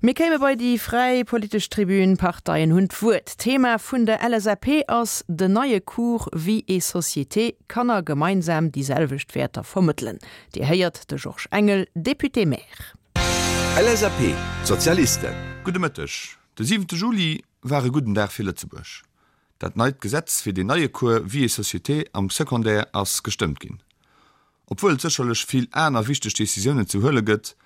Mir kéime bei déi fräi politesch Tribün. D'Parteien hunn d'Wuert. D'Thema vun der LSAP ass den neie Cours Vie et Société, Kanner gemeinsam déi selwecht Wäerter vermëttelen. Dir héiert de Georges Engel, Député-Maire. LSAP, D'Sozialisten. Gudde Mëtteg. De siwente Juli war e gudden Dag fir Lëtzebuerg. Dat neit Gesetz fir deen neie Cours Vie et Société am Secondaire ass gestëmmt ginn. Obwuel et sécherlech vill aner wichteg Decisiounen ze huele gëtt,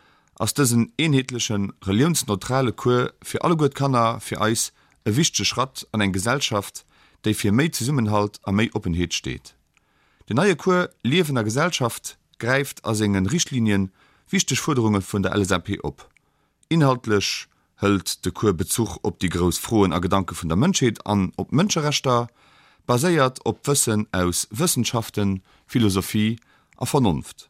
ass dësen eenheetlechen, reliounsneutrale Cours fir alleguer d'Kanner fir eis e wichtege Schratt an eng Gesellschaft, déi fir méi Zesummenhalt a méi Oppenheet steet. Den neie Cours Liewen a Gesellschaft gräift a senge Richtlinien wichteg Fuerderunge vun der LSAP op. Inhaltlech hëlt de Cours Bezuch op déi grouss Froen a Gedanke vun der Mënschheet an op d'Mënscherechter, baséiert op d'Wëssen aus Wëssenschaften, Philosophie a Vernonft.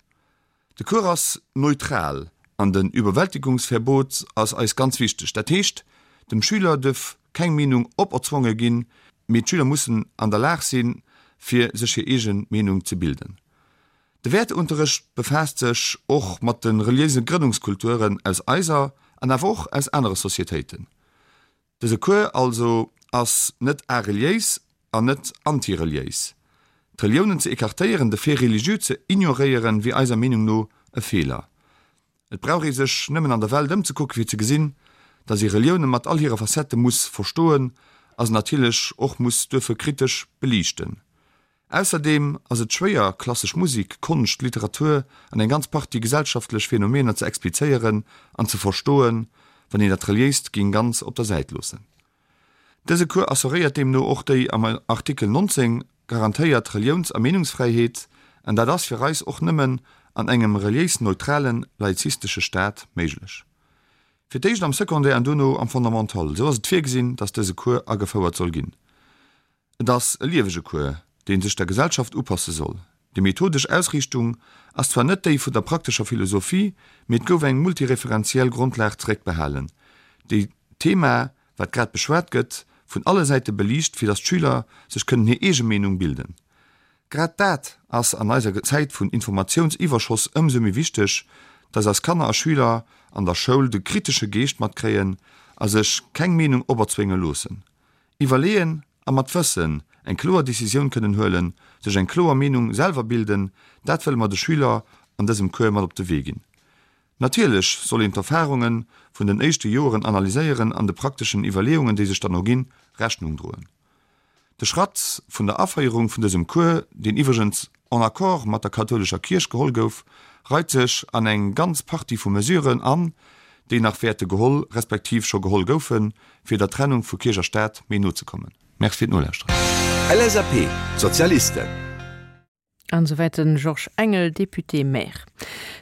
De Cours ass neutral an den Überwältigungsverbot ass eis ganz wichteg. Dat heescht, dem Schüler duerf keng Meenung operzwonge ginn, mee d'Schüler mussen an der Lag sinn, fir sech hir eege Meenung ze bilden. De Wäerteunterrecht befaasst sech och mat de reliéise Grënnungskulturen aus eiser an awer och aus anere Societéiten. Dëse Cours also ass net areliéis an net antireliéis. D'Reliounen ze écartéieren, de Fait religieux ze ignoréieren, wier eiser Meenung no e Feeler. Et brauch ee sech nëmmen an der Welt ëmzekucken, fir ze gesinn, datt ee Relioune mat all hire Facettë muss verstoen a se natierlech och muss duerfe kritesch beliichten. Ausserdeem ass et schwéier, klassesch Musik, Konscht, Literatur an eng ganz Partie gesellschaftlech Phänomener ze explizéieren an ze verstoen, wann een dat Reliéist géing ganz op der Säit loossen. Dëse Cours assuréiert deemno och déi am Artikel 19 garantéiert Reliouns a Meenungsfräiheet, an dat ass fir eis och nëmmen an engem reliéis-neutralen, laizistesche Staat méiglech. Fir d'éischt am Secondaire an duerno am Fondamental, esou ass et virgesinn, datt dëse Cours agefouert soll ginn. Et ass e liewege Cours, dee sech der Gesellschaft upasse soll. Déi methodesch Ausriichtung ass zwar net déi vun der praktescher Philosophie, mee et gouf eng multireferenziell Grondlag zeréckbehalen, déi d'Thema, wat grad beschwat gëtt, vun alle Säite beliicht, fir datt d'Schüler sech kënnen hir eege Meenung bilden. Grad dat ass an eiser Zäit vun Informatiounsiwwerschoss ëmsou méi wichteg, datt eis Kanner a Schüler an der Schoul de kritesche Geescht matkréien a sech keng Meenung operzwénge loossen. Iwwerleeën a mat Wëssen eng kloer Decisioun kënnen huelen, sech eng kloer Meenung selwer bilden, dat wëlle mer de Schüler an dësem Cours mat op de Wee ginn. Natierlech soll een d'Erfarunge vun den éischte Joeren analyséieren an de prakteschen Iwwerleeungen, déi sech dann erginn, Rechnung droen. De Schratt vun der Aféierung vun dësem Cours, deen iwwregens en accord mat der kathoulescher Kierch geholl gouf, reit sech an eng ganz Partie vu Mesuren an, déi nach wäerte geholl respektiv scho geholl goufen, fir der Trennung vu Kierch a Staat méi no ze kommen. Merci fir d'Nolauschteren. LSAP, D'Sozialisten. An esouwäit de Georges Engel, Député-Maire.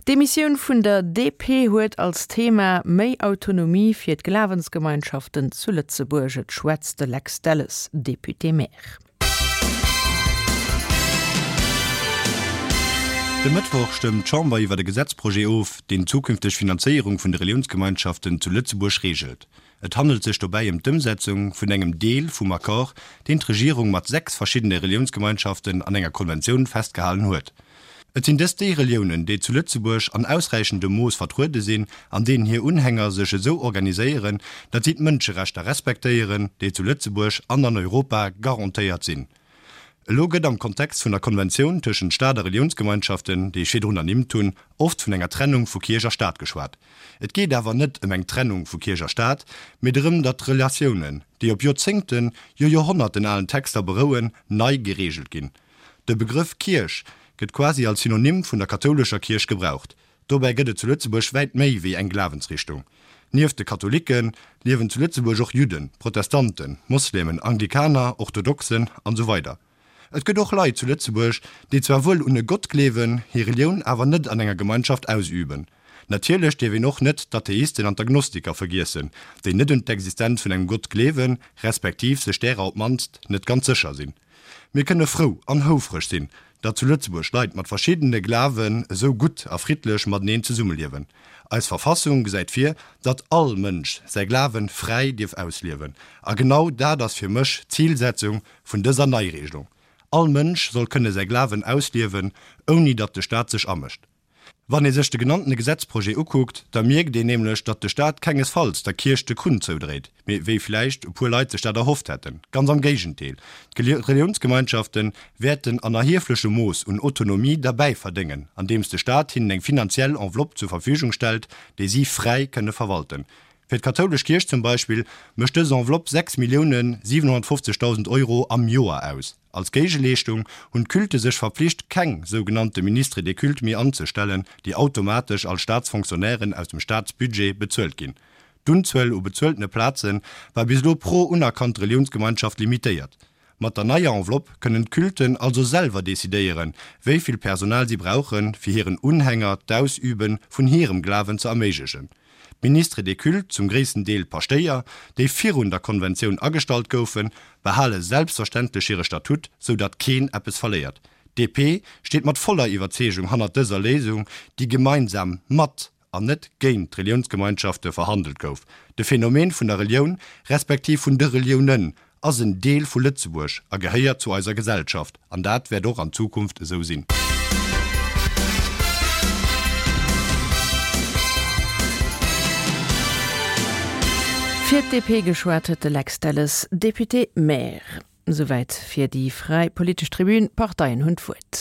D'Demissioun vun der DP huet als Thema méi Autonomie fir d'Glawensgemeinschaften zu Lëtzebuerg. Et schwätzt de Lex Delles, Député-Maire. De Mëttwoch stëmmt d'Chamber iwwer e Gesetzprojet of, deen d'zukünfteg Finanzéierung vun de Reliounsgemeinschaften zu Lëtzebuerg reegelt. Et handelt sech dobäi ëm d'Ëmsetzung vun engem Deel vum Accord, deen d'Regierung mat 6 verschiddene Reliounsgemeinschaften an enger Konventioun festgehalen huet. Et sinn dëst déi Reliounen, déi zu Lëtzebuerg an ausräichendem Mooss vertruede sinn an deenen hir Unhänger sech esou organiséieren, datt si d'Mënscherechter respektéieren, déi zu Lëtzebuerg an an Europa garantéiert sinn. Elo gëtt am Kontext vun der Konventioun tëschent Staat a Reliounsgemeinschaften, déi ech virdrun ernimmt hunn, oft vun enger Trennung vu Kierch a Staat geschwat. Et geet awer net ëm eng Trennung vu Kierch a Staat, mee drëm, datt d'Relatiounen, déi op Joerzéngten, jo Joerhonnerten alen Texter berouen, nei gereegelt ginn. De Begrëff Kierch gëtt quasi als Synonym vun der kathoulescher Kierch gebraucht. Dobäi gëtt et zu Lëtzebuerg wäit méi wéi eng Glawensrichtung. Nieft de Katholikke liewen zu Lëtzebuerg och Judden, Protestanten, Moslemen, Anglikaner, Orthodoxen an esou weider Et gëtt och Leit zu Lëtzebuerg, déi zwar wuel un e Gott gleewen, hir Relioun awer net an enger Gemeinschaft ausüben. Natierlech dierf een och net d'Atheisten an d'Agnostiker vergiessen, déi net un d'Existenz vun engem Gott gleewen, respektiv sech därer op d'mannst net ganz sécher sinn. Mir kënne frou an houfreg sinn, datt zu Lëtzebuerg Leit mat verschiddene Glawen esou gutt a friddlech mateneen zesummeliewen. Eis Verfassung gesäit vir, datt all Mënsch säi Glawe fräi dierf ausliewen. A genau dat ass fir mech d'Zilsetzung vun dëser Neiregelung, All Mënsch soll kënne säi Glawen ausliewen, ouni datt de Staat sech amëscht. Wann ee sech de genanntene Gesetzprojet ukuckt, da mierkt een nämlech, datt de Staat kengesfalls der Kierch de Krunn zoudréit, mee wéi vläicht e puer Leit sech dat erhofft hätten. Ganz am Géigendeel, d'Reliounsgemeinschafte wäerten an erhieflechem Mooss un Autonomie derbäi verdéngen, andeems de Staat hinnen eng finanziell Enveloppe zur Verfügung stellt, déi si fräi kënne verwalten. Fir d'kathoulesch Kierch zum Beispill mécht dës Enveloppe 6.750.000 Euro am Joer aus. Als Géigeleeschtung hunn d'Culte sech verpflicht, keng sougenannte Ministres des cultes méi anzestellen, déi automatesch als Staatsfonctionnairen aus dem Staatsbudget bezuelt ginn. D'Unzuel u bezueltene Plaze war bis elo pro unerkannt Reliounsgemeinschaft limitéiert. Mat der neier Enveloppe kënnen d'Culten also selwer decidéieren, wéi vill Personal si brauchen, fir hiren Unhänger d'Ausübe vun hirem Glawen ze erméiglechen. D'Ministres des cultes, zum gréissten Deel Paschtéier, déi virun der Konventioun agestallt goufen, behale selbstverständlech hire Statut, sou datt keen eppes verléiert. D'DP steet mat voller Iwwerzeegung hannert dëser Léisung, déi gemeinsam mat an net géint d'Reliounsgemeinschafte verhandelt gouf. De Phänomen vun der Relioun, respektiv vun de Reliounen, ass en Deel vu Lëtzebuerg a gehéiert zu eiser Gesellschaft, an dat wäert och an Zukunft esou sinn. Fir d'DP geschwat huet de Lex Delles, Député-maire. Souwäit fir déi fräi politesch Tribün. D'Parteien hunn d'Wuert.